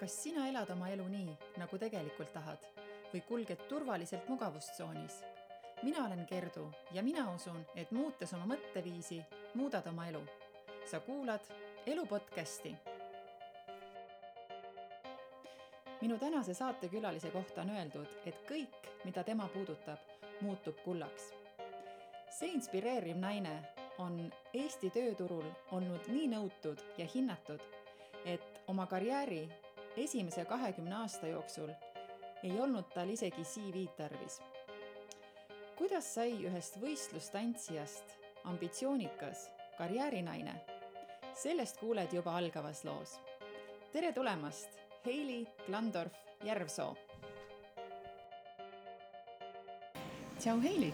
Kas sina elad oma elu nii, nagu tegelikult tahad või kulged turvaliselt mugavustsoonis? Mina olen Gerdu ja mina usun, et muutes oma mõtteviisi, muudad oma elu. Sa kuulad Elu podcasti. Minu tänase saatekülalise kohta on öeldud, et kõik, mida tema puudutab, muutub kullaks. See inspireeriv naine on Eesti tööturul olnud nii nõutud ja hinnatud, et oma karjääri esimese 20 aasta jooksul ei olnud tal isegi CV tarvis. Kuidas sai ühest võistlustantsijast ambitsioonikas karjäärinaine? Sellest kuuled juba algavas loos. Tere tulemast, Heili Klandorf-Järvsoo. Tšau, Heili!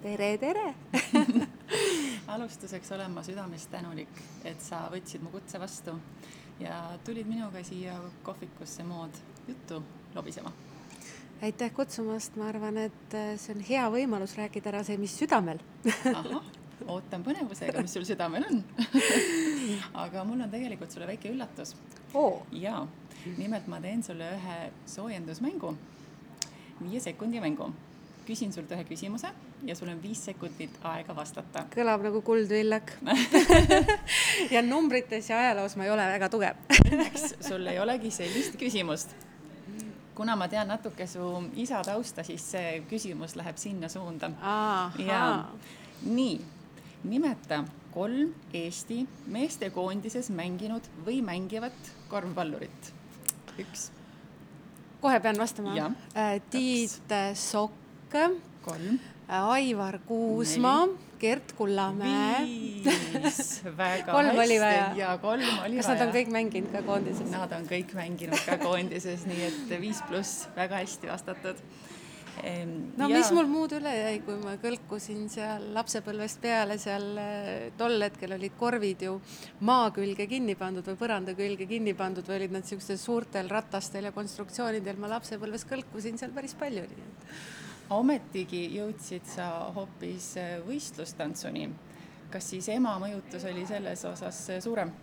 Tere, tere! Alustuseks olen ma südamest tänulik, et sa võtsid mu kutse vastu ja tulid minuga siia kohvikusse mood juttu lobisema. Aitäh kutsumast, ma arvan, et see on hea võimalus rääkida ära see, mis südamel. Aha, ootan põnevusega, mis sul südamel on. Aga mul on tegelikult sulle väike üllatus. Ja, nimelt ma teen sulle ühe soojendusmängu, 5 sekundi mängu. Küsin sult ühe küsimuse ja sul on 5 sekundit aega vastata. Kõlab nagu kuldvillak. Ja numbrites ja ajaloos ma ei ole väga tugev. Õnneks sul ei olegi sellist küsimust. Kuna ma tean natuke su isa tausta, siis see küsimus läheb sinna suunda. Ja, nii, nimeta 3 Eesti meestekoondises mänginud või mängivat korvpallurit. 1. Kohe pean vastama. Ja. Tiit Sokk, 3. Aivar Kuusmaa, Gert Kullamäe. 5. Väga 3 oli hästi. vaja. Ja 3 oli Kas nad on kõik mänginud ka koondises? Nad on kõik mänginud ka koondises, nii et 5+, väga hästi vastatud. No mis mul muud üle jäi, kui ma kõlkusin seal lapsepõlvest peale, seal tol hetkel olid korvid ju maa külge kinni pandud või põranda külge kinni pandud või olid nad sellistel suurtel ratastel ja konstruktsioonidel. Ma lapsepõlves kõlkusin seal päris palju. Ometigi jõudsid sa hoopis võistlustantsuni. Kas siis ema mõjutus oli selles osas suurem?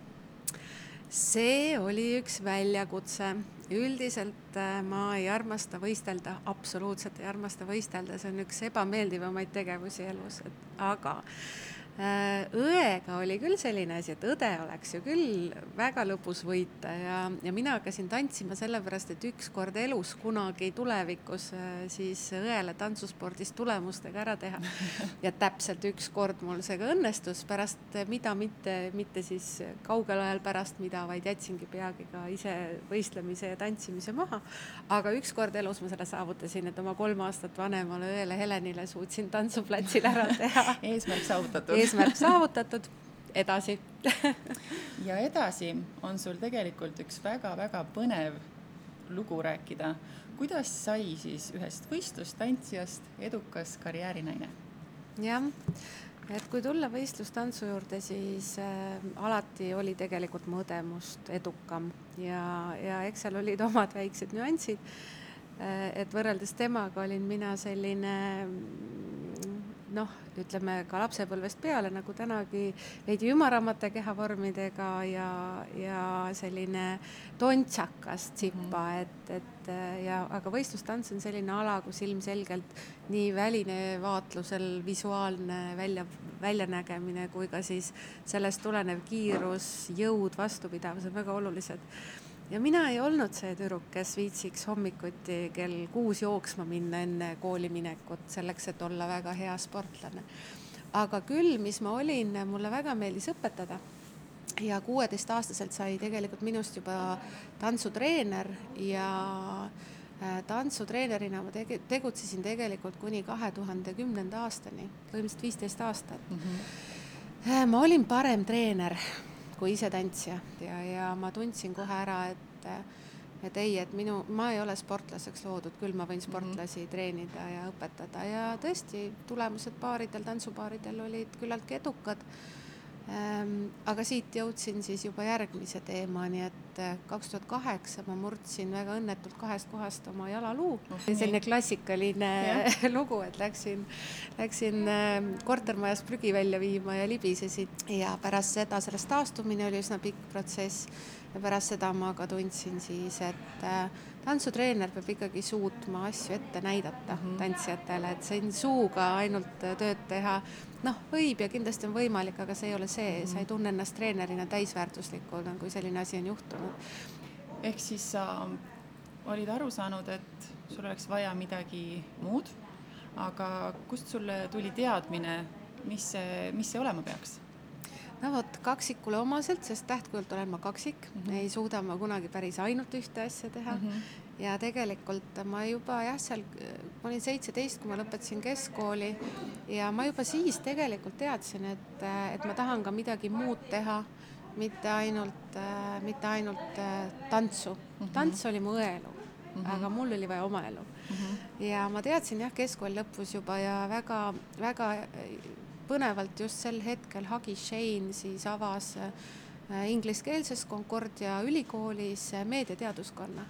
See oli üks väljakutse. Üldiselt ma ei armasta võistelda, absoluutselt ei armasta võistelda. See on üks ebameeldivamaid tegevusi elus. Aga õega oli küll selline asi, et õde oleks ju küll väga lõpus võita ja mina hakkasin tantsima sellepärast, et üks kord elus kunagi tulevikus siis õele tantsuspordis tulemustega ära teha. Ja täpselt üks kord mul see ka õnnestus pärast, mida mitte siis kaugel ajal pärast mida, vaid jätsingi peagi ka ise võistlemise ja tantsimise maha. Aga üks kord elus ma selle saavutasin, et oma 3 aastat vanemale õele Helenile suutsin tantsuplatsil ära teha. Eesmärk saavutatud. Eesmärk saavutatud, edasi. Ja edasi on sul tegelikult üks väga-väga põnev lugu rääkida. Kuidas sai siis ühest võistlustantsijast edukas karjäärinaine? Jah, et kui tulla võistlustantsu juurde, siis alati oli tegelikult mõdemust edukam ja eks seal olid omad väiksed nüansid, et võrreldes temaga olin mina selline ütleme ka lapsepõlvest peale, nagu tänagi veidi ümaramate kehavormidega ja selline tontsakas tsipa, aga võistlustants on selline ala, kus ilmselgelt nii väline vaatlusel visuaalne väljanägemine kui ka siis sellest tulenev kiirus, jõud, vastupidavus on väga olulised. Ja mina ei olnud see tüdruk, kes viitsiks hommikuti kell 6 jooksma minna enne kooli minekut, selleks, et olla väga hea sportlane. Aga küll, mis ma olin, mulle väga meeldis õpetada. Ja 16-aastaselt sai tegelikult minust juba tantsutreener ja tantsutreenerina ma tegutsesin tegelikult kuni 2010. aastani, põhimõtteliselt 15 aastat. Ma olin parem treener kui ise tantsija ja ma tundsin kohe ära, et ma ei ole sportlaseks loodud, küll ma võin sportlasi treenida ja õpetada ja tõesti tulemused tantsupaaridel olid küllalt edukad. Aga siit jõudsin siis juba järgmise teemani, et 2008 ma murdsin väga õnnetult 2 kohast oma jalaluu. Selline klassikaline lugu, et läksin kortermajas prügi välja viima ja libisesin. Ja pärast seda sellest taastumine oli üsna pikk protsess. ja pärast seda ma ka tundsin siis, et tantsutreener peab ikkagi suutma asju ette näidata tantsijatele, et siin suuga ainult tööd teha, võib ja kindlasti on võimalik, aga see ei ole see, sa ei tunne ennast treenerina täisväärtuslikuna, kui selline asi on juhtunud. Ehk siis sa olid aru saanud, et sul oleks vaja midagi muud, aga kust sulle tuli teadmine, mis see olema peaks? Kaksikule omaselt, sest tähtkujult olen ma kaksik, ei suuda ma kunagi päris ainult ühte asja teha ja tegelikult ma juba ma olin 17, kui ma lõpetasin keskkooli ja ma juba siis tegelikult teadsin, et ma tahan ka midagi muud teha, mitte ainult tantsu. Tants oli mu õelu, aga mul oli vaja oma elu. Ja ma teadsin keskkooli lõpus juba ja väga, väga põnevalt just sel hetkel Hagi Shane siis avas ingliskeelses Concordia ülikoolis meediateaduskonna.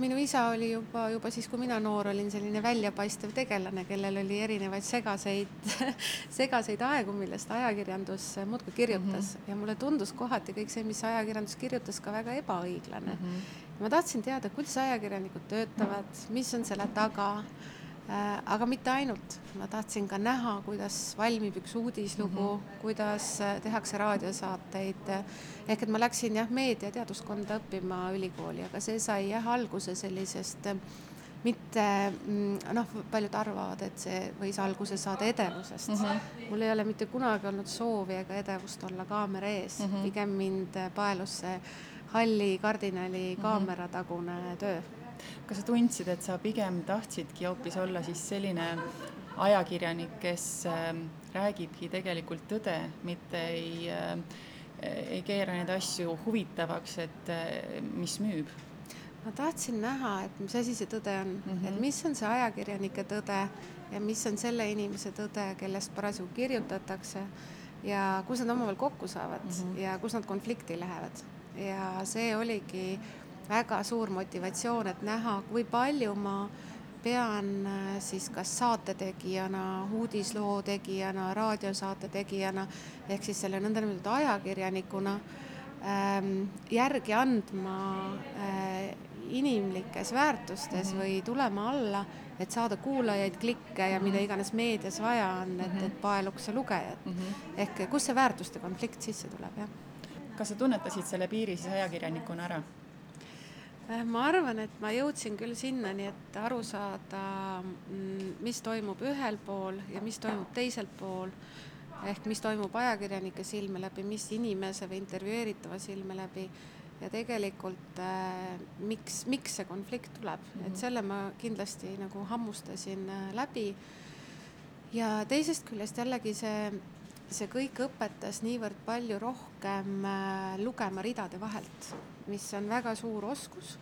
Minu isa oli juba siis, kui mina noor olin, selline väljapaistev tegelane, kellel oli erinevaid segaseid aegu, millest ajakirjandus muudkui kirjutas. Ja mulle tundus kohati kõik see, mis ajakirjandus kirjutas, ka väga ebaõiglane. Ma tahtsin teada, kuidas ajakirjanikud töötavad, mis on selle taga, aga mitte ainult. Ma tahtsin ka näha, kuidas valmib üks uudislugu, kuidas tehakse raadiosaateid. Ehk et ma läksin meediateaduskonda õppima ülikooli, aga see sai alguse sellisest mitte, paljud arvavad, et see võis alguse saada edevusest. Mul ei ole mitte kunagi olnud soovi ega edevust olla kaamera ees. Pigem mind paelus see halli kardinali kaameratagune töö. Kas sa tundsid, et sa pigem tahtsidki hoopis olla siis selline ajakirjanik, kes räägibki tegelikult tõde, mitte ei keera neid asju huvitavaks, et mis müüb? Ma tahtsin näha, et mis asi see tõde on, et mis on see ajakirjanike tõde ja mis on selle inimese tõde, kellest parasjagu kirjutatakse ja kus nad omavahel kokku saavad ja kus nad konflikti lähevad. Ja see oligi väga suur motivatsioon, et näha, kui palju ma pean siis kas saatetegijana, uudisloo tegijana, raadiosaate tegijana, ehk siis selle nõndanimetatud ajakirjanikuna järgi andma inimlikes väärtustes või tulema alla, et saada kuulajaid, klikke ja mida iganes meedias vaja on, et paeluks ja lugejad. Ehk kus see väärtuste konflikt sisse tuleb, jah? Kas sa tunnetasid selle piiri siis ajakirjanikuna ära? Ma arvan, et ma jõudsin küll sinnani, et aru saada, mis toimub ühel pool ja mis toimub teisel pool, ehk mis toimub ajakirjanike silme läbi, mis inimese või intervjueeritava silme läbi ja tegelikult miks see konflikt tuleb. Et selle ma kindlasti nagu hammustasin läbi ja teisest küljest jällegi see kõik õpetas niivõrd palju rohkem lugema ridade vahelt, mis on väga suur oskus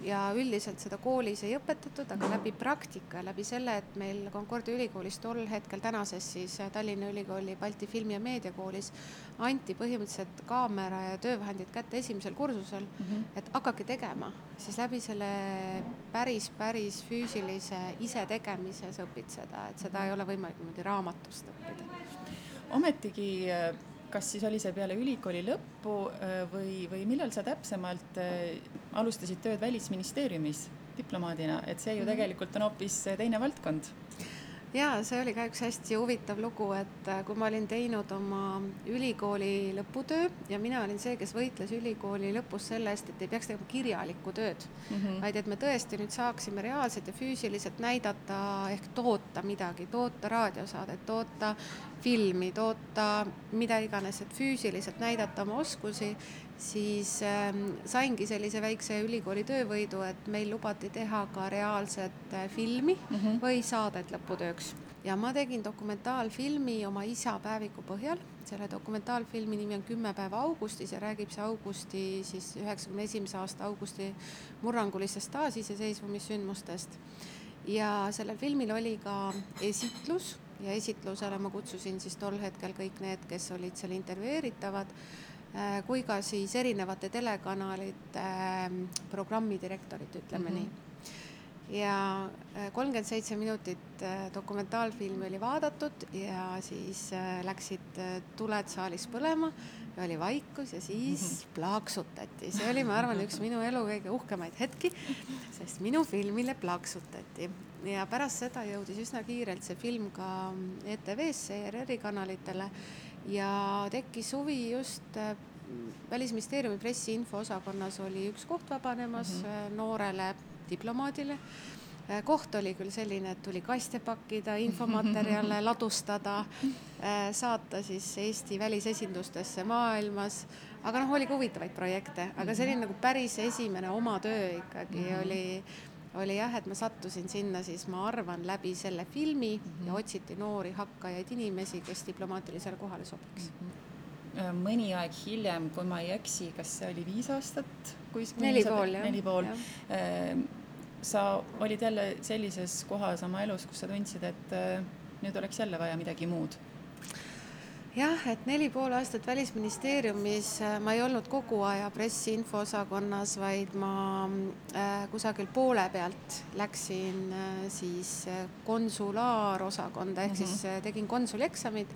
ja üldiselt seda koolis ei õpetatud, aga läbi praktika, läbi selle, et meil Concordia ülikoolis tol hetkel tänases siis Tallinna Ülikooli Balti Filmi- ja Meediakoolis anti põhimõtteliselt kaamera ja töövahendid kätte esimesel kursusel, et hakake tegema, siis läbi selle päris füüsilise ise tegemise sa õpid seda, et seda ei ole võimalik niimoodi raamatust õppida. Ometigi, kas siis oli see peale ülikooli lõppu või millal sa täpsemalt alustasid tööd Välisministeeriumis diplomaadina, et see ju tegelikult on hoopis teine valdkond? Jaa, see oli ka üks hästi huvitav lugu, et kui ma olin teinud oma ülikooli lõputöö ja mina olin see, kes võitles ülikooli lõpus selle eest, et ei peaks tegema kirjalikku tööd, vaid et me tõesti nüüd saaksime reaalselt ja füüsiliselt näidata ehk toota midagi, toota raadiosaadet, toota filmi, toota mida iganes, et füüsiliselt näidata oma oskusi, siis saingi sellise väikse ülikooli töövõidu, et meil lubati teha ka reaalset filmi või saadet lõputööks. Ja ma tegin dokumentaalfilmi oma isa päeviku põhjal. Selle dokumentaalfilmi nimi on 10 päeva augustis ja räägib see augusti, siis 91. aasta augusti murrangulistest taasiseseisvumissündmustest. Ja sellel filmil oli ka esitlus ja esitlusele ma kutsusin siis tol hetkel kõik need, kes olid seal intervjueeritavad, kui ka siis erinevate telekanalite programmidirektorid, ütleme nii. Ja 37 minutit dokumentaalfilmi oli vaadatud ja siis läksid tuled saalis põlema oli vaikus ja siis plaaksutati. See oli, ma arvan, üks minu elu kõige uhkemaid hetki, sest minu filmile plaaksutati. Ja pärast seda jõudis üsna kiirelt see film ka ETV-sse, ERR-i kanalitele ja tekkis huvi just Välisministeeriumi pressiinfo osakonnas oli üks koht vabanemas noorele diplomaadile. Koht oli küll selline, et tuli kaste pakkida, infomaterjale ladustada, saata siis Eesti välisesindustesse maailmas, aga oli ka huvitavaid projekte, aga see oli nagu päris esimene oma töö ikkagi oli jah, et ma sattusin sinna siis, ma arvan, läbi selle filmi ja otsiti noori hakkajaid inimesi, kes diplomaatilisele kohale sobiks. Mõni aeg hiljem, kui ma ei eksi, kas see oli 5 aastat? 4,5. Sa olid jälle sellises kohas oma elus, kus sa tundsid, et nüüd oleks jälle vaja midagi muud. Jah, et 4,5 aastat Välisministeeriumis ma ei olnud kogu aja pressiinfo osakonnas, vaid ma kusagil poole pealt läksin siis konsulaarosakonda, ehk siis tegin konsulieksamid,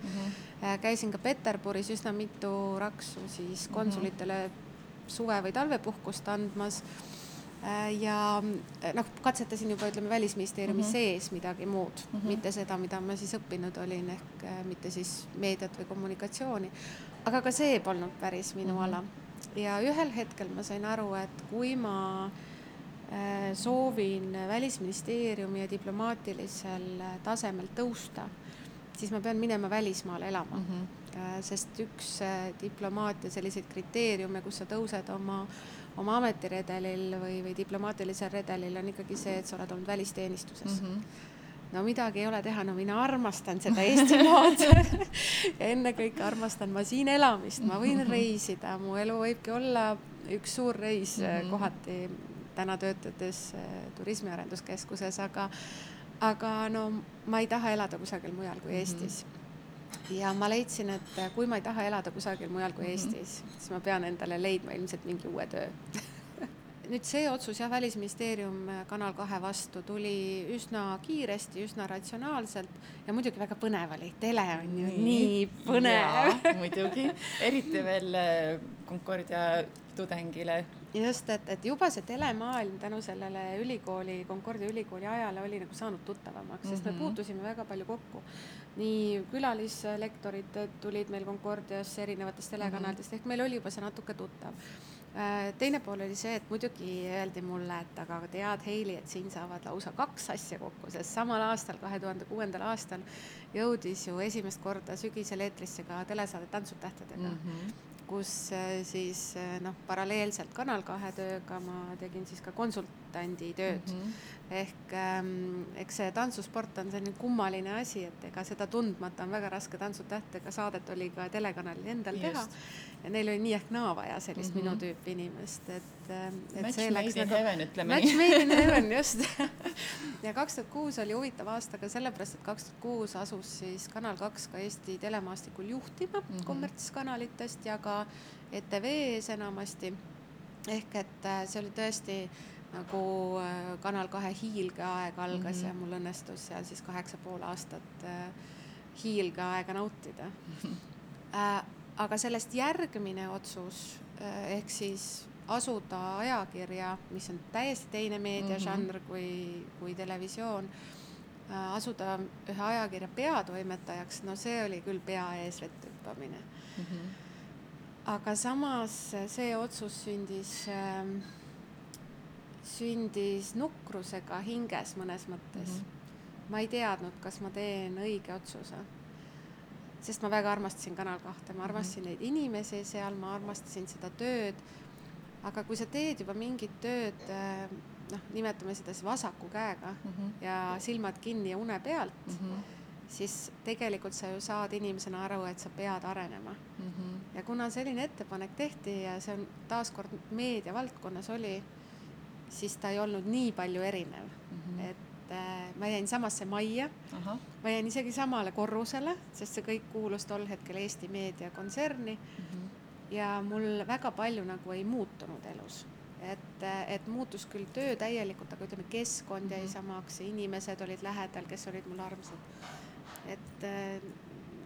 käisin ka Peterburis üsna mitu raksu siis konsulitele suve- või talvepuhkust andmas ja katsetasin juba, ütleme, Välisministeeriumi sees midagi muud, mitte seda, mida ma siis õppinud olin, ehk mitte siis meediat või kommunikatsiooni, aga ka see polnud päris minu ala. Ja ühel hetkel ma sain aru, et kui ma soovin Välisministeeriumi ja diplomaatilisel tasemel tõusta, siis ma pean minema välismaale elama, sest üks diplomaatia selliseid kriteeriume, kus sa tõused oma ametiredelil või diplomaatilisel redelil on ikkagi see, et sa oled olnud välisteenistuses. No midagi ei ole teha, mina armastan seda Eestimaad ja ennekõike armastan ma siin elamist, ma võin reisida, mu elu võibki olla üks suur reis kohati täna töötades turismiarenduskeskuses, aga ma ei taha elada kusagil mujal kui Eestis. Ja ma leidsin, et kui ma ei taha elada kusagil mujal kui Eestis, siis ma pean endale leidma ilmselt mingi uue töö. Nüüd see otsus ja Välisministeerium Kanal 2 vastu tuli üsna kiiresti, üsna ratsionaalselt ja muidugi väga põnev oli. Tele on ju nii põnev. Ja, muidugi. Eriti veel Concordia tudengile. Just, et juba see telemaailm tänu sellele Concordia ülikooli ajale oli nagu saanud tuttavamaks, sest me puutusime väga palju kokku. Nii külalislektorid tulid meil Concordias erinevatest telekanalitest, ehk meil oli juba see natuke tuttav. Teine pool oli see, et muidugi öeldi mulle, et aga tead, Heili, et siin saavad lausa 2 asja kokku, sest samal aastal, 2006. aastal jõudis ju esimest korda sügisel eetrisse ka telesaade Tantsud tähtedega, kus siis paralleelselt Kanal 2 tööga ma tegin siis ka konsultandi tööd. Ehk eks see tantsusport on selline kummaline asi, et ega seda tundmata on väga raske Tantsud tähtedega saadet oli ka telekanalil endal teha. Ja neil oli nii ehk naa vaja sellist minu tüüpi inimest. Match made in heaven, ütleme nii. Match made in heaven, just. Ja 2006 oli huvitav aasta ka sellepärast, et 2006 asus siis Kanal 2 ka Eesti telemaastikul juhtima kommertskanalitest ja ka ETV-s enamasti. Ehk et see oli tõesti nagu Kanal 2 hiilgeaeg algas ja mul õnnestus seal siis 8,5 aastat hiilgeaega nautida. Aga sellest järgmine otsus, ehk siis asuda ajakirja, mis on täiesti teine meediažanr kui televisioon, asuda ühe ajakirja peatoimetajaks, see oli küll pea ees vettüppamine. Aga samas see otsus sündis nukrusega hinges mõnes mõttes. Ma ei teadnud, kas ma teen õige otsuse. Sest ma väga armastasin Kanal 2, ma armastasin neid inimesi seal, ma armastasin seda tööd, aga kui sa teed juba mingit tööd, nimetame seda vasaku käega ja silmad kinni ja une pealt, siis tegelikult sa ju saad inimesena aru, et sa pead arenema. Ja kuna selline ettepanek tehti ja see on taaskord meedia valdkonnas oli, siis ta ei olnud nii palju erinev, et ma jäin samasse majja, ma jäin isegi samale korrusele, sest see kõik kuulus tol hetkel Eesti Meedia kontserni ja mul väga palju nagu ei muutunud elus. Et muutus küll töö täielikult, aga ütleme, keskkond jäi samaks, inimesed olid lähedal, kes olid mul armsad. Et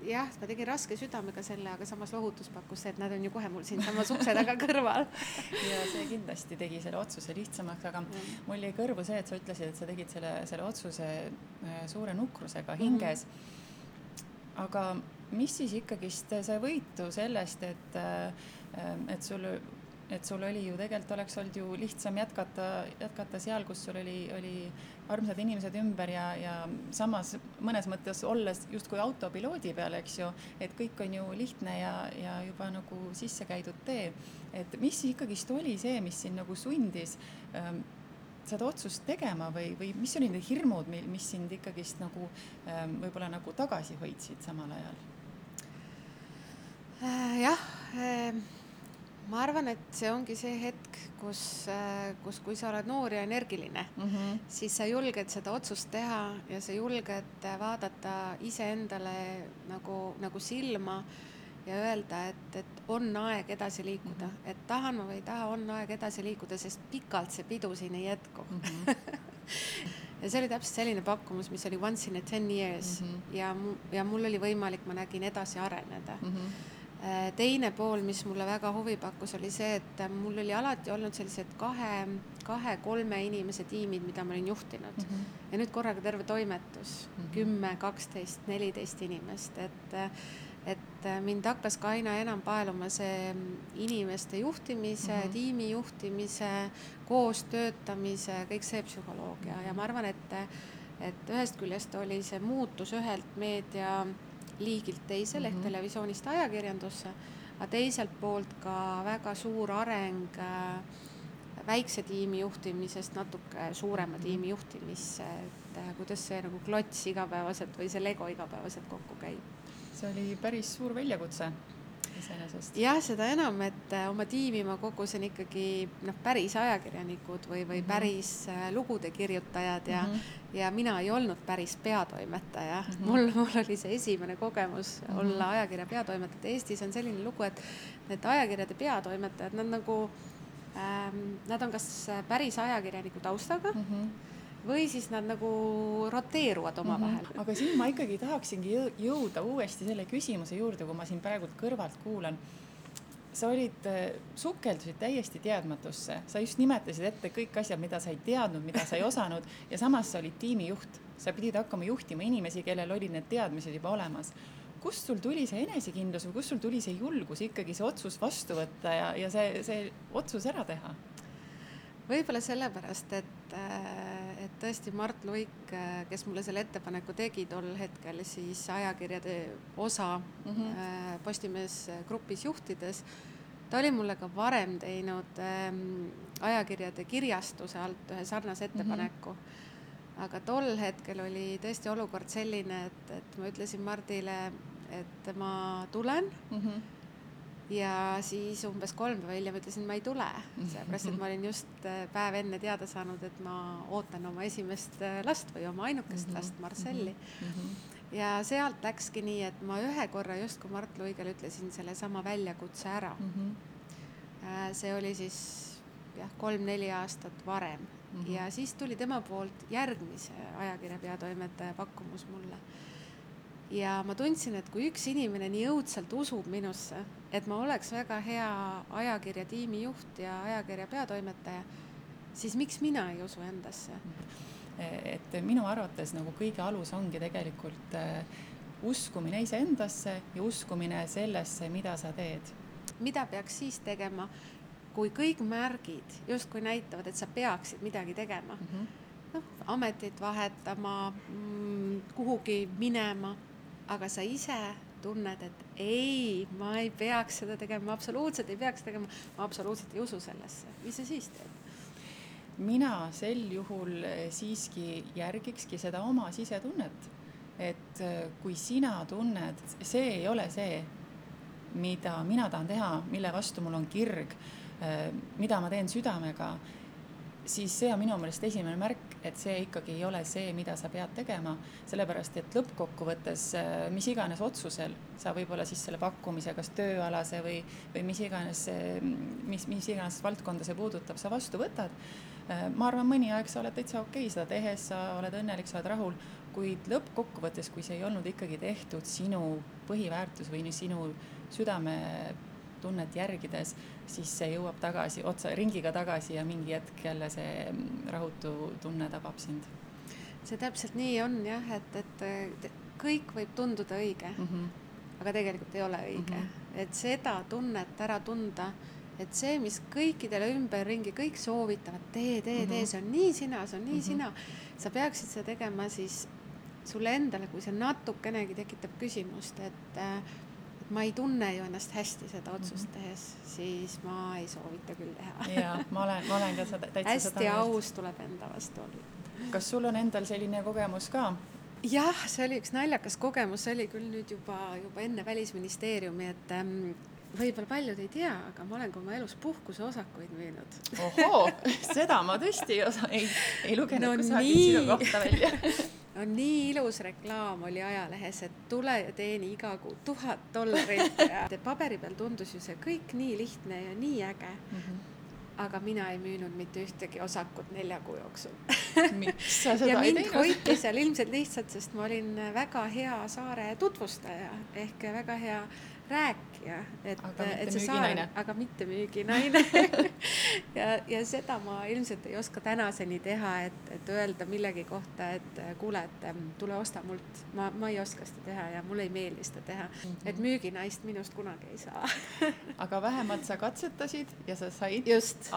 jah, ma tegin raske südamega selle, aga samas lohutus pakkus see, et nad on ju kohe mul siin samas ukse taga kõrval. Ja see kindlasti tegi selle otsuse lihtsamaks, aga mul jäi kõrvu see, et sa ütlesid, et sa tegid selle otsuse suure nukrusega hinges. Aga mis siis ikkagist sai võitu sellest, et sul oli ju tegelikult oleks olnud ju lihtsam jätkata seal, kus sul oli armsad inimesed ümber ja samas mõnes mõttes olles justkui autopiloodi peal, eks ju, et kõik on ju lihtne ja juba nagu sisse käidud tee. Et mis ikkagist oli see, mis sind nagu sundis seda otsust tegema või mis oli need hirmud, mis sind ikkagist nagu võib-olla nagu tagasi hoidsid samal ajal? Jah, ma arvan, et see ongi see hetk, kus kui sa oled noor ja energiline, siis sa julged seda otsust teha ja sa julged vaadata iseendale nagu silma ja öelda, et on aeg edasi liikuda, et tahan ma või ei taha, on aeg edasi liikuda, sest pikalt see pidu siin ei jätku. Ja see oli täpselt selline pakkumus, mis oli once in a 10 years ja mul oli võimalik, ma nägin edasi areneda. Teine pool, mis mulle väga huvi pakkus, oli see, et mul oli alati olnud sellised 2-3 inimese tiimid, mida ma olin juhtinud. Ja nüüd korraga terve toimetus, 10, 12, 14 inimest. Et mind hakkas ka aina enam paeluma see inimeste juhtimise, tiimi juhtimise, koos töötamise, kõik see psühholoogia. Ja ma arvan, et ühest küljest oli see muutus ühelt meedia liigilt teisel ehk televisioonist ajakirjandusse, aga teiselt poolt ka väga suur areng väikse tiimi juhtimisest natuke suurema tiimi juhtimisse, et kuidas see nagu klots igapäevaselt või see Lego igapäevaselt kokku käib. See oli päris suur väljakutse iseenesest. Jah, seda enam, et oma tiimi ma kogusin ikkagi päris ajakirjanikud või päris lugude kirjutajad ja mina ei olnud päris peatoimetaja. Mul oli see esimene kogemus olla ajakirja peatoimetajad. Eestis on selline lugu, et need ajakirjade peatoimetajad, nad on kas päris ajakirjaniku taustaga või siis nad nagu roteeruvad oma vahel. Aga siin ma ikkagi tahaksingi jõuda uuesti selle küsimuse juurde, kui ma siin praegu kõrvalt kuulan. Sa sukeldusid täiesti teadmatusse. Sa just nimetasid ette kõik asjad, mida sa ei teadnud, mida sa ei osanud ja samas sa olid tiimijuht. Sa pidid hakkama juhtima inimesi, kellel olid need teadmised juba olemas. Kust sul tuli see enesekindlus või kust sul tuli see julgus ikkagi see otsus vastu võtta ja see otsus ära teha? Võib-olla sellepärast, et tõesti Mart Luik, kes mulle selle ettepaneku tegi tol hetkel siis ajakirjade osa Postimees grupis juhtides, ta oli mulle ka varem teinud ajakirjade kirjastuse alt ühe sarnase ettepaneku. Aga tol hetkel oli tõesti olukord selline, et ma ütlesin Mardile, et ma tulen ja siis umbes 3 päeva hiljem ütlesin, ma ei tule. Seepärast, et ma olin just päev enne teada saanud, et ma ootan oma esimest last või oma ainukest last, Marcelli. Ja sealt läkski nii, et ma ühe korra just kui Mart Luigel ütlesin selle sama väljakutse ära. See oli siis 3-4 aastat varem. Ja siis tuli tema poolt järgmise ajakirja peatoimetaja pakkumus mulle. Ja ma tundsin, et kui üks inimene nii õudselt usub minusse, et ma oleks väga hea ajakirja tiimijuht ja ajakirja peatoimetaja, siis miks mina ei usu endasse? Et minu arvates nagu kõige alus ongi tegelikult uskumine iseendasse ja uskumine sellesse, mida sa teed. Mida peaks siis tegema, kui kõik märgid justkui näitavad, et sa peaksid midagi tegema? Ametit vahetama, kuhugi minema, aga sa ise tunned, et ei, ma ei peaks seda tegema, absoluutselt ei peaks tegema, ma absoluutselt ei usu sellesse. Mis sa siis teed? Mina sel juhul siiski järgikski seda oma sisetunnet, et kui sina tunned, see ei ole see, mida mina tahan teha, mille vastu mul on kirg, mida ma teen südamega, siis see on minu meelest esimene märk, et see ikkagi ei ole see, mida sa pead tegema, sellepärast, et lõppkokkuvõttes mis iganes otsusel sa võib-olla siis selle pakkumise, kas tööalase või mis iganes valdkonda see puudutab, sa vastu võtad. Ma arvan, mõni aeg sa oled täitsa okei seda tehes, sa oled õnnelik, sa oled rahul, kuid lõppkokkuvõttes, kui see ei olnud ikkagi tehtud sinu põhiväärtus või sinu südametunnet järgides, siis see jõuab tagasi, ringiga tagasi ja mingi hetk jälle see rahutu tunne tabab sind. See täpselt nii on jah, et kõik võib tunduda õige, aga tegelikult ei ole õige. Et seda tunnet ära tunda, et see, mis kõikidele ümberringi, kõik soovitavad, tee, see on nii sina, see on nii sina. Sa peaksid seda tegema siis sulle endale, kui see natukenegi tekitab küsimust, et ma ei tunne ju ennast hästi seda otsust tehes, siis ma ei soovita küll teha. Jaa, ma olen ka täitsa seda hästi aus tuleb enda vastu olla. Kas sul on endal selline kogemus ka? Jah, see oli üks naljakas kogemus, see oli küll nüüd juba enne Välisministeeriumi, et võib-olla paljud ei tea, aga ma olen ka oma elus puhkuse osakuid müünud. Ohoo, seda ma tõesti ei lugenud kusagil sinu kohta välja. No nii ilus reklaam oli ajalehes, et tule ja teeni iga kuu $1000 ja paberi peal tundus ju see kõik nii lihtne ja nii äge. Aga mina ei müünud mitte ühtegi osakut 4 kuu jooksul. Miks sa seda ja ei mind teinud? hoiti seal ilmselt lihtsalt, sest ma olin väga hea saare tutvustaja ehk väga hea rääkija. Aga mitte müüginaine. ja seda ma ilmselt ei oska tänaseni teha, et öelda millegi kohta, et kuule, et tule osta mult. Ma ei oska seda teha ja mulle ei meeldi seda teha. Et müüginaist minust kunagi ei saa. Aga vähemalt sa katsetasid ja sa said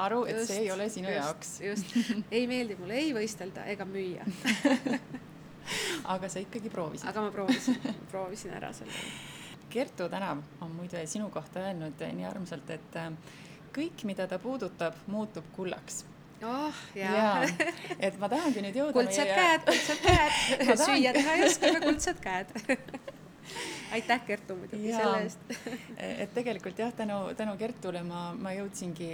aru, et see ei ole sinu jaoks. Just. Ei meeldi mulle ei võistelda ega müüa. Aga sa ikkagi proovisid. Aga ma proovisin ära selle. Kertu Tänav on muide sinu kohta öelnud nii armsalt, et kõik, mida ta puudutab, muutub kullaks. Jaa. Et ma tahangi nüüd jõuda kuldsed käed. Süüa teha ei oska, aga kuldsed käed. Aitäh Kertu muidugi selle eest. Et tegelikult jah, tänu Kertule ma jõudsingi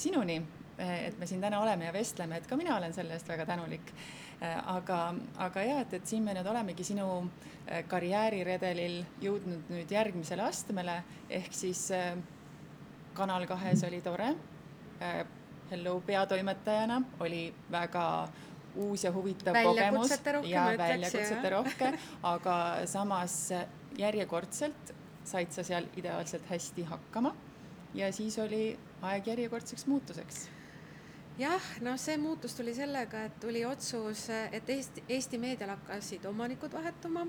sinuni, et me siin täna oleme ja vestleme, et ka mina olen selle eest väga tänulik. Aga jah, et siin me nüüd olemegi sinu karjääriredelil jõudnud nüüd järgmisele astmele, ehk siis Kanal 2 oli tore. Hello peatoimetajana oli väga uus ja huvitav kogemus ja väljakutsete rohke, aga samas järjekordselt said sa seal ideaalselt hästi hakkama ja siis oli aeg järjekordseks muutuseks. Jah, no see muutus tuli sellega, et tuli otsus, et Eesti meedial hakkasid omanikud vahetuma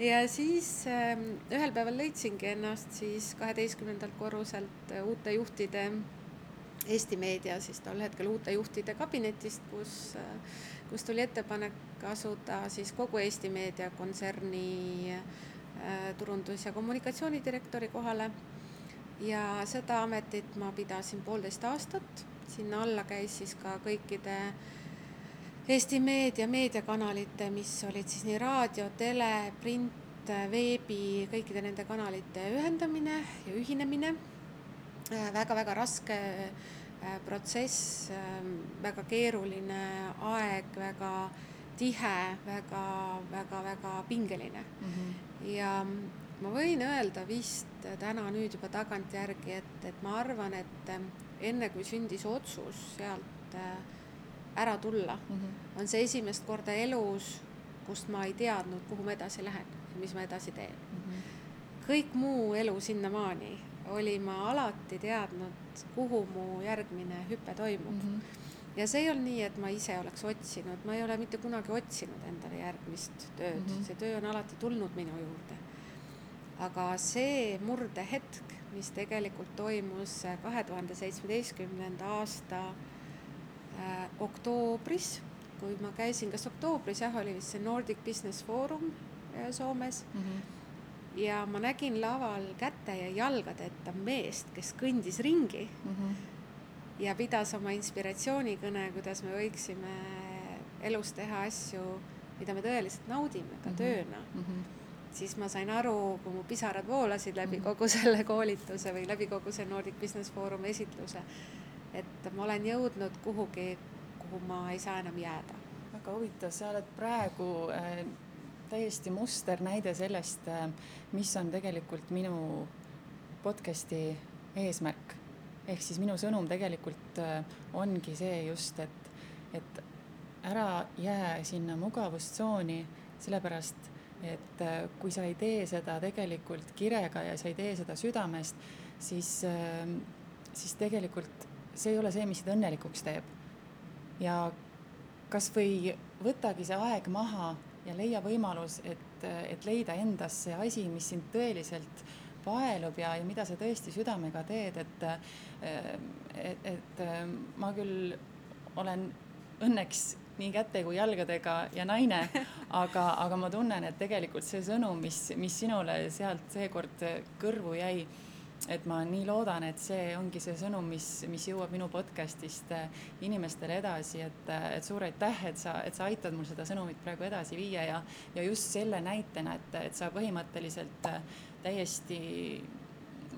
ja siis ühel päeval leidsingi ennast siis 12. korruselt uute juhtide Eesti meedia, siis tol hetkel uute juhtide kabinetist, kus tuli ettepanek asuda siis kogu Eesti meedia kontserni turundus- ja kommunikatsioonidirektori kohale ja seda ametit ma pidasin 1,5 aastat. Sinna alla käis siis ka kõikide Eesti meediakanalite, mis olid siis nii raadio, tele, print, veebi, kõikide nende kanalite ühendamine ja ühinemine. Väga-väga raske protsess, väga keeruline aeg, väga tihe, väga-väga pingeline. Ja ma võin öelda vist täna nüüd juba tagantjärgi, et ma arvan, et enne kui sündis otsus sealt ära tulla, on see esimest korda elus, kust ma ei teadnud, kuhu ma edasi lähen ja mis ma edasi teen. Kõik muu elu sinnamaani oli ma alati teadnud, kuhu mu järgmine hüpe toimub. Ja see ei olnud nii, et ma ise oleks otsinud. Ma ei ole mitte kunagi otsinud endale järgmist tööd. See töö on alati tulnud minu juurde. Aga see murdehetk, mis tegelikult toimus 2017. aasta oktoobris, kui ma käisin, kas oktoobris, oli vist see Nordic Business Forum Soomes ja ma nägin laval käte ja jalgadeta meest, kes kõndis ringi ja pidas oma inspiratsioonikõne, kuidas me võiksime elus teha asju, mida me tõeliselt naudime ka tööna. Siis ma sain aru, kui mu pisarad voolasid läbi kogu selle koolituse või läbi kogu see Nordic Business Forum esitluse, et ma olen jõudnud kuhugi, kuhu ma ei saa enam jääda. Väga huvitav, sa oled praegu täiesti muster näide sellest, mis on tegelikult minu podcasti eesmärk. Ehk siis minu sõnum tegelikult ongi see just, et ära jää sinna mugavustsooni, sellepärast, et kui sa ei tee seda tegelikult kirega ja sa ei tee seda südamest, siis tegelikult see ei ole see, mis sind õnnelikuks teeb. Ja kas või võtagi see aeg maha ja leia võimalus, et leida endas see asi, mis sind tõeliselt paelub ja mida sa tõesti südamega teed, et ma küll olen õnneks nii käte kui jalgadega ja naine, aga ma tunnen, et tegelikult see sõnum, mis sinule sealt seekord kõrvu jäi, et ma nii loodan, et see ongi see sõnum, mis jõuab minu podcastist inimestele edasi, et suur aitäh, et sa aitad mul seda sõnumit praegu edasi viia ja just selle näitena, et sa põhimõtteliselt täiesti,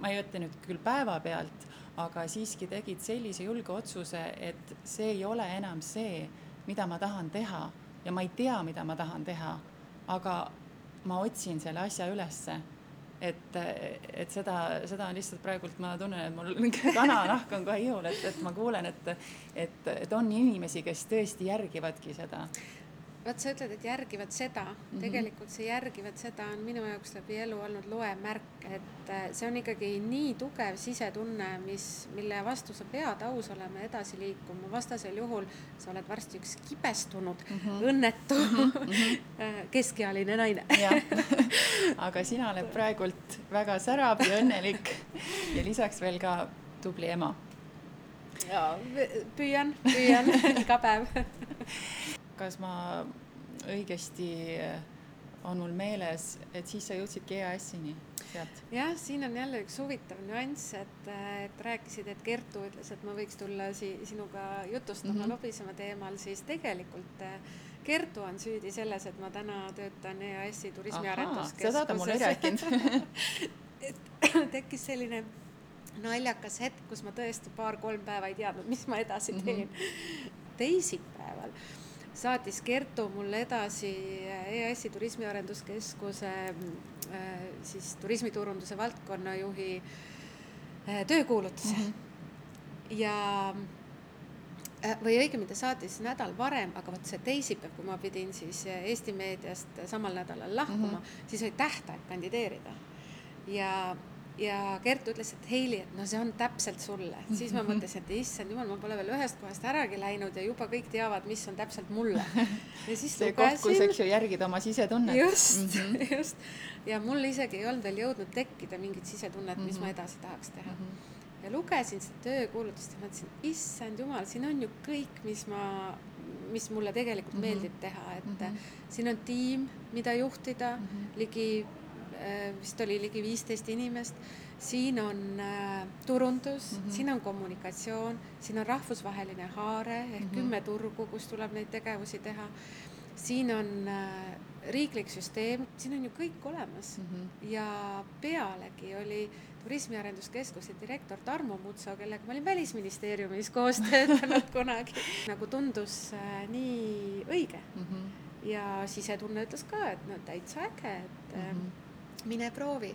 ma ei ütle nüüd küll päevapealt, aga siiski tegid sellise julge otsuse, et see ei ole enam see, mida ma tahan teha ja ma ei tea, mida ma tahan teha, aga ma otsin selle asja ülesse. Et seda on lihtsalt praegult, ma tunnen, et mul kananahk on kohe ihul, et ma kuulen, et on inimesi, kes tõesti järgivadki seda. Vaat sa ütled, et järgivad seda. Tegelikult see järgivad seda on minu jaoks läbi elu olnud loemärk, et see on ikkagi nii tugev sisetunne, mille vastu sa pead aus olema edasi liikuma. Vastasel juhul sa oled varsti üks kibestunud, õnnetu, keskealine naine. Aga sina oled praegult väga särab ja õnnelik ja lisaks veel ka tubli ema. Ja, püüan iga päev. Kas ma õigesti on mul meeles, et siis sa jõudsidki EAS-ini sealt? Jah, siin on jälle üks huvitav nüanss, et rääkisid, et Kertu ütles, et ma võiks tulla sinuga jutustama lobisema teemal, siis tegelikult Kertu on süüdi selles, et ma täna töötan EAS-i turismiarenduskeskuses. Seda ta mulle ei rääkinud. Tekkis selline naljakas hetk, kus ma tõesti 2-3 päeva ei teadnud, mis ma edasi teen. Teisipäeval saatis Kertu mulle edasi EAS-i turismiarenduskeskuse siis turismiturunduse valdkonnajuhi töökuulutuse. Ja või õigemini ta saatis nädal varem, aga võt see teisipäev, kui ma pidin siis Eesti meediast samal nädalal lahkuma, siis oli tähtaeg kandideerida. Ja Kertu ütles, et Heili, et no see on täpselt sulle. Siis ma mõtlesin, et issand jumal, ma pole veel ühest kohast äragi läinud ja juba kõik teavad, mis on täpselt mulle. Ja siis see koht, kus eks ju järgid oma sisetunnet. Just. Ja mul isegi ei olnud veel jõudnud tekkida mingit sisetunnet, mis ma edasi tahaks teha. Ja lugesin seda töökuulutust ja mõtlesin, issand jumal, siin on ju kõik, mis mulle tegelikult meeldib teha. Et siin on tiim, mida juhtida, vist oli ligi 15 inimest. Siin on turundus, siin on kommunikatsioon, siin on rahvusvaheline haare ehk 10 turgu, kus tuleb neid tegevusi teha. Siin on riiklik süsteem, siin on ju kõik olemas. Ja pealegi oli turismiarenduskeskuse direktor Tarmo Mutso, kellega ma olin Välisministeeriumis koos töötanud kunagi. Nagu tundus nii õige. Ja sisetunne ütles ka, et no täitsa äge, et mine proovi.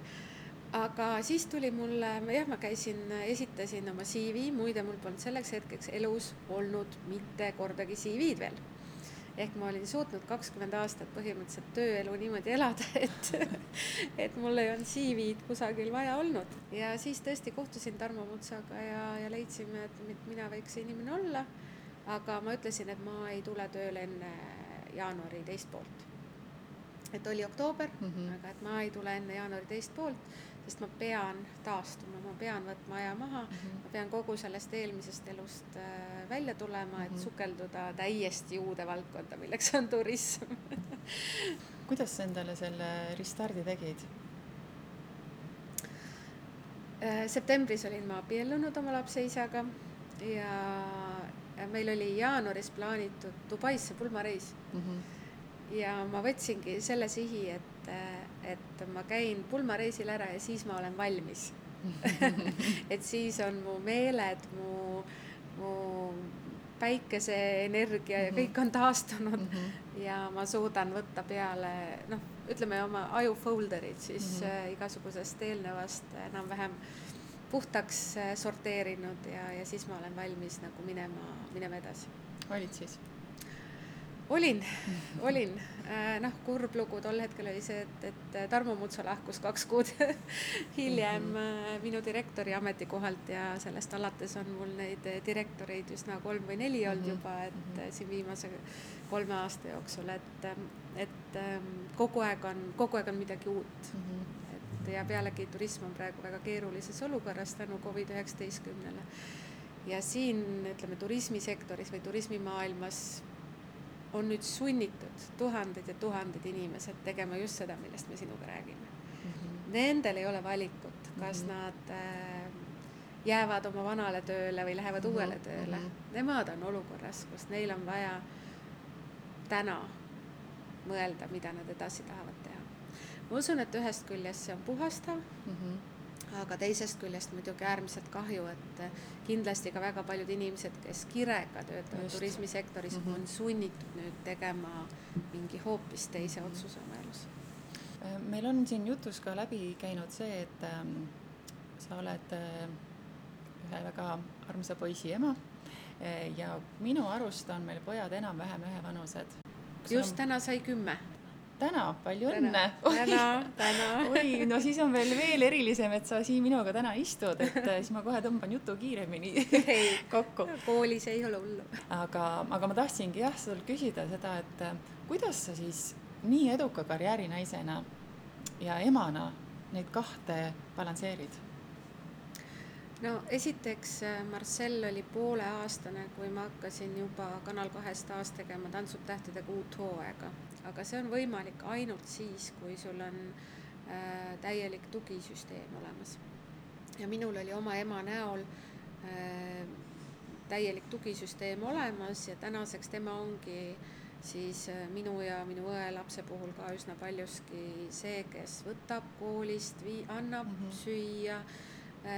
Aga siis tuli mulle, ma esitasin oma CV, muide mul polnud selleks hetkeks elus olnud mitte kordagi CV-d veel. Ehk ma olin suutnud 20 aastat põhimõtteliselt tööelu niimoodi elada, et mul ei olnud CV-d kusagil vaja olnud. Ja siis tõesti kohtusin Tarmo Mutsaga ja leidsime, et mina võiks inimene olla, aga ma ütlesin, et ma ei tule tööle enne jaanuari teist poolt. Et oli oktoober, aga et ma ei tule enne jaanuari teist poolt, sest ma pean taastuma, ma pean võtma aja maha, ma pean kogu sellest eelmisest elust välja tulema, et sukelduda täiesti uude valdkonda, milleks on turism. Kuidas sa endale selle restardi tegid? Septembris olin ma abiellunud oma lapseisaga ja meil oli jaanuaris plaanitud Dubaisse pulmareis. Ja ma võtsingi selle sihi, et ma käin pulmareisil ära ja siis ma olen valmis. Et siis on mu meeled, mu päikeseenergia ja kõik on taastunud ja ma suudan võtta peale, ütleme oma aju folderid siis igasugusest eelnevast enam-vähem puhtaks sorteerinud ja siis ma olen valmis nagu minema edasi. Olid siis? Olin. Kurb lugu tol hetkel oli see, et Tarmo Mutso lahkus 2 kuud hiljem minu direktori ametikohalt ja sellest alates on mul neid direktoreid üsna 3 või 4 olnud juba, et siin viimase 3 aasta jooksul, et kogu aeg on midagi uut. Ja pealegi turism on praegu väga keerulises olukorras tänu COVID-19-le. Ja siin, ütleme, turismisektoris või turismimaailmas on nüüd sunnitud tuhanded ja tuhanded inimesed tegema just seda, millest me sinuga räägime. Nendel ei ole valikut, kas nad jäävad oma vanale tööle või lähevad uuele tööle. Nemad on olukorras, kus neil on vaja täna mõelda, mida nad edasi tahavad teha. Ma usun, et ühest küljest see on puhastav, aga teisest küljest muidugi äärmiselt kahju, et kindlasti ka väga paljud inimesed, kes kirega töötavad turismisektoris, on sunnitud nüüd tegema mingi hoopis teise otsuse oma elus. Meil on siin jutus ka läbi käinud see, et sa oled ühe väga armsa poisi ema ja minu arust on meil pojad enam-vähem ühevanused. Just täna sai 10. Täna, palju õnne! Täna. Oi, no siis on veel erilisem, et sa siin minuga täna istud, et siis ma kohe tõmban jutu kiiremini kokku. Koolis ei ole hullu. Aga ma tahtsingi sul küsida seda, et kuidas sa siis nii eduka karjäärinaisena ja emana neid 2 balansseerid? No esiteks Marcel oli 1,5-aastane, kui ma hakkasin juba Kanal 2 taas tegema Tantsud tähtedega uut hooaega. Aga see on võimalik ainult siis, kui sul on täielik tugisüsteem olemas. Ja minul oli oma ema näol täielik tugisüsteem olemas ja tänaseks tema ongi siis minu ja minu õe lapse puhul ka üsna paljuski see, kes võtab koolist, annab süüa,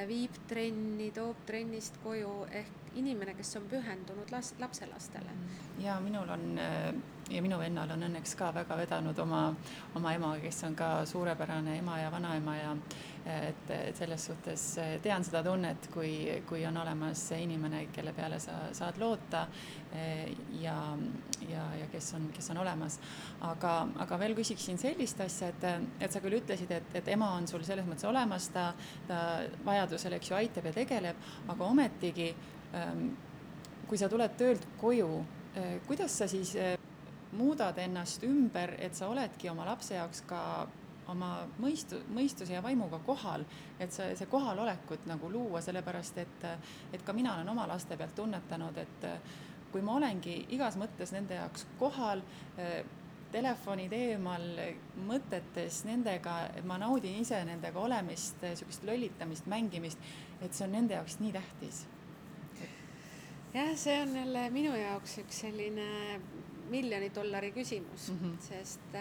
viib trenni, toob trennist koju ehk inimene, kes on pühendunud lapselastele. Ja minul on ja minu vennal on õnneks ka väga vedanud oma ema, kes on ka suurepärane ema ja vanaema ja et selles suhtes tean seda tunnet, kui on olemas inimene, kelle peale sa saad loota ja kes on olemas. Aga veel küsiksin sellist asja, et sa küll ütlesid, et ema on sul selles mõttes olemas, ta vajadusel, eks ju, aitab ja tegeleb, aga ometigi, kui sa tuled töölt koju, kuidas sa siis muudad ennast ümber, et sa oledki oma lapse jaoks ka oma mõistuse ja vaimuga kohal, et see kohalolekut nagu luua, sellepärast, et ka mina olen oma laste pealt tunnetanud, et kui ma olengi igas mõttes nende jaoks kohal, telefonid eemal, mõtetes nendega, et ma naudin ise nendega olemist, sükest lollitamist, mängimist, et see on nende jaoks nii tähtis. Jah, see on jälle minu jaoks üks selline $1 miljoni küsimus, sest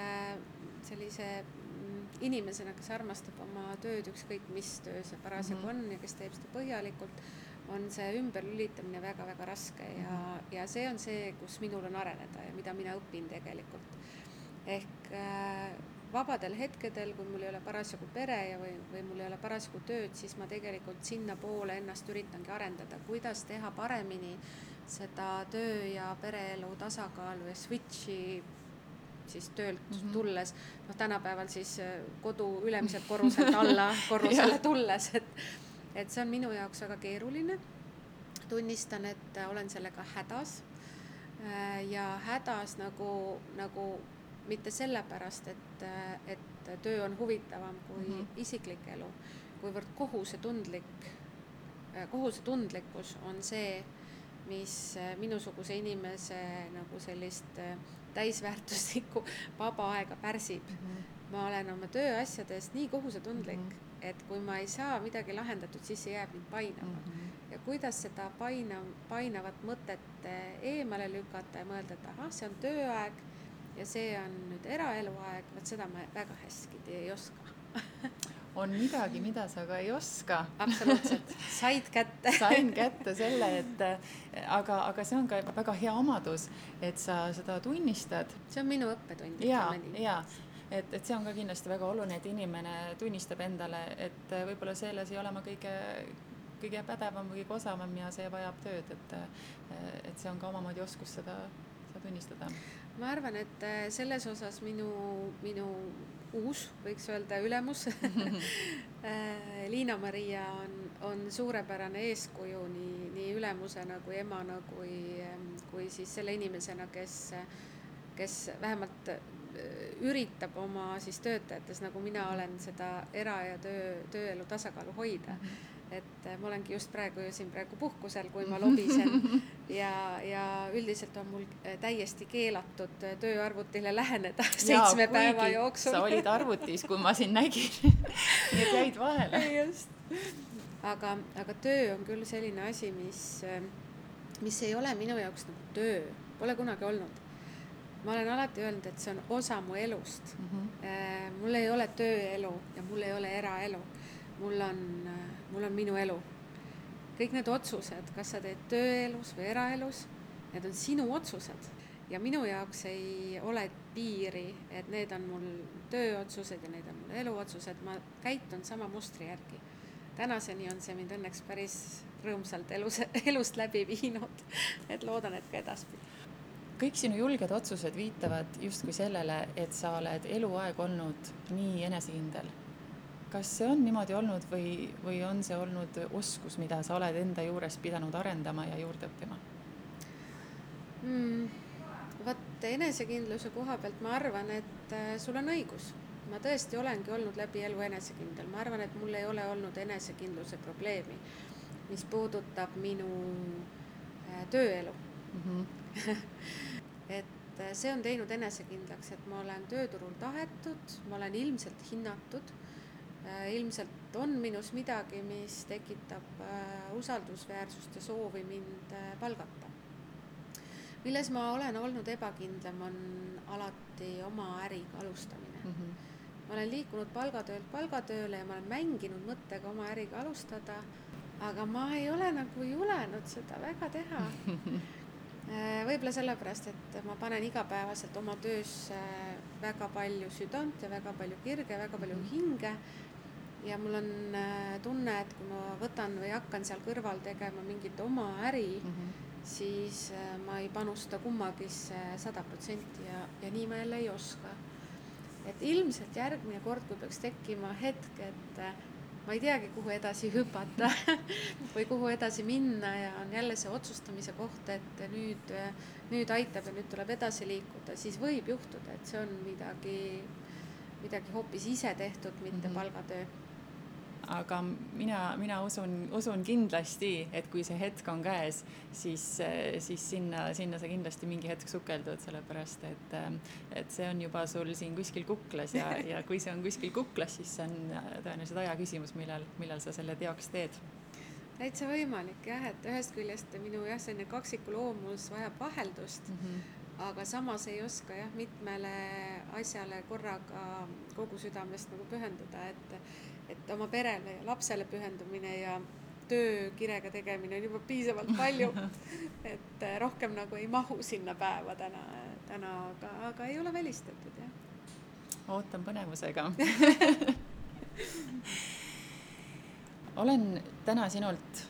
sellise inimesena, kes armastab oma tööd, ükskõik mis töö see parasjagu on ja kes teeb seda põhjalikult, on see ümberlülitamine väga-väga raske ja see on see, kus minul on areneda ja mida mina õpin tegelikult. Ehk vabadel hetkedel, kui mul ei ole parasjagu pere või mul ei ole parasjagu tööd, siis ma tegelikult sinna poole ennast üritangi arendada, kuidas teha paremini seda töö ja pereelu tasakaalu ja switchi siis töölt tulles, tänapäeval siis kodu ülemiselt korruselt alla korrusele tulles, et see on minu jaoks väga keeruline. Tunnistan, et olen sellega hädas ja hädas nagu mitte sellepärast, et töö on huvitavam kui isiklik elu, kuivõrd kohusetundlikkus on see, mis minusuguse inimese nagu sellist täisväärtuslikku vaba aega pärsib. Ma olen oma tööasjadest nii kohusetundlik, et kui ma ei saa midagi lahendatud, siis see jääb mind painama. Ja kuidas seda painavat mõtet eemale lükata ja mõelda, et see on tööaeg ja see on nüüd eraeluaeg, seda ma väga hästi ei oska. On midagi, mida sa ka ei oska. Absoluutselt. Sain kätte selle, aga see on ka väga hea omadus, et sa seda tunnistad. See on minu õppetund. Ja, et see on ka kindlasti väga oluline, et inimene tunnistab endale, et võib-olla selles ei ole ma kõige pädevam või kõige osavam ja see vajab tööd, et see on ka omamoodi oskus seda tunnistada. ma arvan, et selles osas minu uus, võiks öelda, ülemus Liina-Maria on suurepärane eeskuju nii ülemusena kui emana kui siis selle inimesena, kes vähemalt üritab oma siis töötajates, nagu mina olen, seda era- ja tööelu tasakaalu hoida. Et ma olengi just praegu puhkusel, kui ma lobisen ja üldiselt on mul täiesti keelatud tööarvutile läheneda 7 päeva jooksul. Sa olid arvutis, kui ma siin nägin. Nii et jäid vahele. Just. Aga töö on küll selline asi, mis ei ole minu jaoks nagu töö. Pole kunagi olnud. Ma olen alati öelnud, et see on osa mu elust. Mul ei ole tööelu ja mul ei ole eraelu. Mul on minu elu. Kõik need otsused, kas sa teed tööelus või eraelus, need on sinu otsused. Ja minu jaoks ei ole piiri, et need on mul tööotsused ja need on mul eluotsused. Ma käitun sama mustri järgi. Tänaseni on see mind õnneks päris rõõmsalt elust läbi viinud. Et loodan, et ka edaspidi. Kõik sinu julged otsused viitavad justkui sellele, et sa oled eluaeg olnud nii enesekindel. Kas see on niimoodi olnud või on see olnud oskus, mida sa oled enda juures pidanud arendama ja juurde õppima? Vaat enesekindluse koha pealt ma arvan, et sul on õigus. Ma tõesti olengi olnud läbi elu enesekindel. Ma arvan, et mul ei ole olnud enesekindluse probleemi, mis puudutab minu tööelu. Et see on teinud enesekindlaks, et ma olen tööturul tahetud, ma olen ilmselt hinnatud, ilmselt on minus midagi, mis tekitab usaldusväärsust ja soovi mind palgata. Milles ma olen olnud ebakindlam, on alati oma äriga alustamine. Ma olen liikunud palgatöölt palgatööle ja ma olen mänginud mõttega oma äriga alustada, aga ma ei ole nagu julenud seda väga teha. Võib-olla sellepärast, et ma panen igapäevaselt oma töös väga palju südant ja väga palju kirge, väga palju hinge ja mul on tunne, et kui ma võtan või hakkan seal kõrval tegema mingit oma äri, siis ma ei panusta kummagisse 100% ja nii ma jälle ei oska. Et ilmselt järgmine kord, kui peaks tekkima hetk, et ma ei teagi, kuhu edasi hüpata või kuhu edasi minna ja on jälle see otsustamise koht, et nüüd aitab ja nüüd tuleb edasi liikuda, siis võib juhtuda, et see on midagi hoopis ise tehtud, mitte palgatöö. Aga mina usun kindlasti, et kui see hetk on käes, siis sinna sa kindlasti mingi hetk sukeldud, sellepärast, et see on juba sul siin kuskil kuklas ja kui see on kuskil kuklas, siis see on tõenäoliselt aja küsimus, millal sa selle teoks teed. Täitsa võimalik, jah, et ühest küljest minu selline kaksikuloomus vajab vaheldust, aga samas ei oska mitmele asjale korraga kogu südamest nagu pühenduda, et oma perele ja lapsele pühendumine ja töökirega tegemine on juba piisavalt palju, et rohkem nagu ei mahu sinna päeva täna aga ei ole välistatud, jah. Ootan põnevusega. Olen täna sinult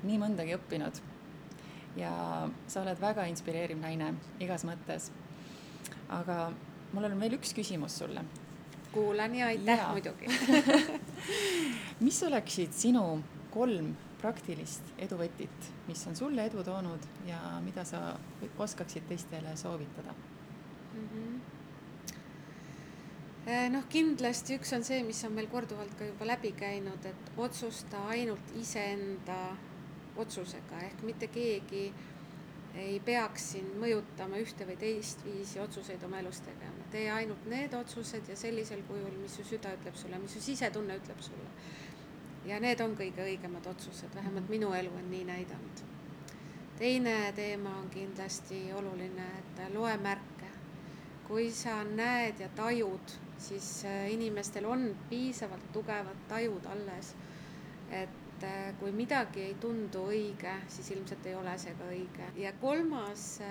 nii mõndagi õppinud ja sa oled väga inspireeriv naine igas mõttes. Aga mul on veel üks küsimus sulle. Kuulan ja aitäh muidugi. Mis oleksid sinu 3 praktilist eduvõtit, mis on sulle edu toonud ja mida sa oskaksid teistele soovitada? Kindlasti üks on see, mis on meil korduvalt ka juba läbi käinud, et otsusta ainult iseenda otsusega, ehk mitte keegi ei peaks siin mõjutama ühte või teist viisi otsuseid oma elus tegema. Tee ainult need otsused ja sellisel kujul, mis su süda ütleb sulle, mis su sisetunne ütleb sulle. Ja need on kõige õigemad otsused, vähemalt minu elu on nii näidanud. Teine teema on kindlasti oluline, et loe märke. Kui sa näed ja tajud, siis inimestel on piisavalt tugevad tajud alles, et kui midagi ei tundu õige, siis ilmselt ei ole see ka õige. Ja kolmas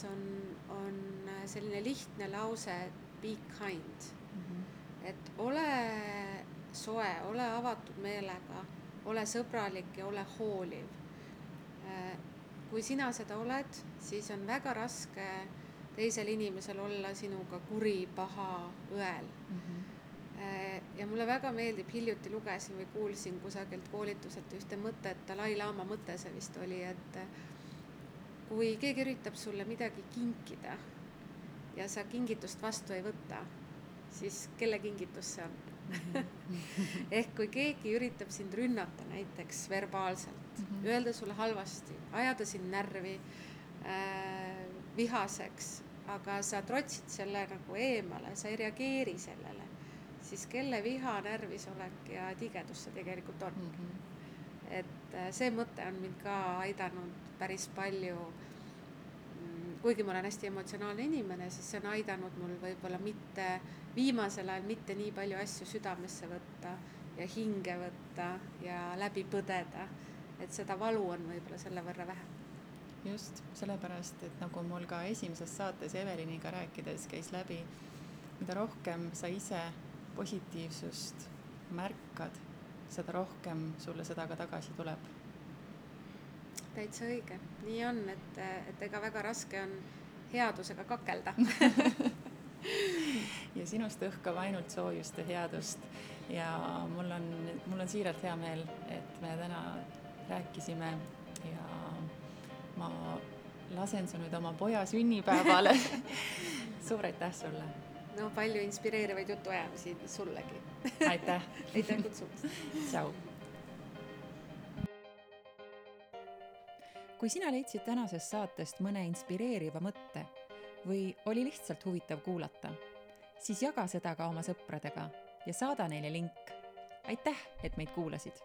on selline lihtne lause, be kind. Et ole soe, ole avatud meelega, ole sõbralik ja ole hooliv. Kui sina seda oled, siis on väga raske teisel inimesel olla sinuga kuri, paha, õel. Ja mulle väga meeldib, hiljuti lugesin või kuulsin kusagilt koolituselt ühte mõtet, Dalai Lama mõte see vist oli, et kui keegi üritab sulle midagi kinkida ja sa kingitust vastu ei võta, siis kelle kingitus see on? Ehk kui keegi üritab sind rünnata näiteks verbaalselt, öelda sulle halvasti, ajada sind närvi, vihaseks, aga sa trotsid selle nagu eemale, sa ei reageeri sellele, siis kelle viha, närvisolek ja tigedus see tegelikult on. Et see mõte on mind ka aidanud päris palju, kuigi ma olen hästi emotsionaalne inimene, siis see on aidanud mul võib-olla mitte viimasel ajal mitte nii palju asju südamesse võtta ja hinge võtta ja läbi põdeda, et seda valu on võib-olla selle võrra vähem. Just, sellepärast, et nagu mul ka esimeses saates Eveliniga rääkides käis läbi, mida rohkem sa ise positiivsust märkad, seda rohkem sulle seda ka tagasi tuleb. Täitsa õige. Nii on, et ega väga raske on headusega kakelda. Ja sinust õhkab ainult soojust ja headust. Ja mul on siiralt hea meel, et me täna rääkisime ja ma lasen su nüüd oma poja sünnipäevale. Suur aitäh sulle! No palju inspireerivaid jutuajamisi sullegi. Aitäh! Aitäh kutsumast! Tšau! Kui sina leidsid tänasest saatest mõne inspireeriva mõtte või oli lihtsalt huvitav kuulata, siis jaga seda ka oma sõpradega ja saada neile link. Aitäh, et meid kuulasid!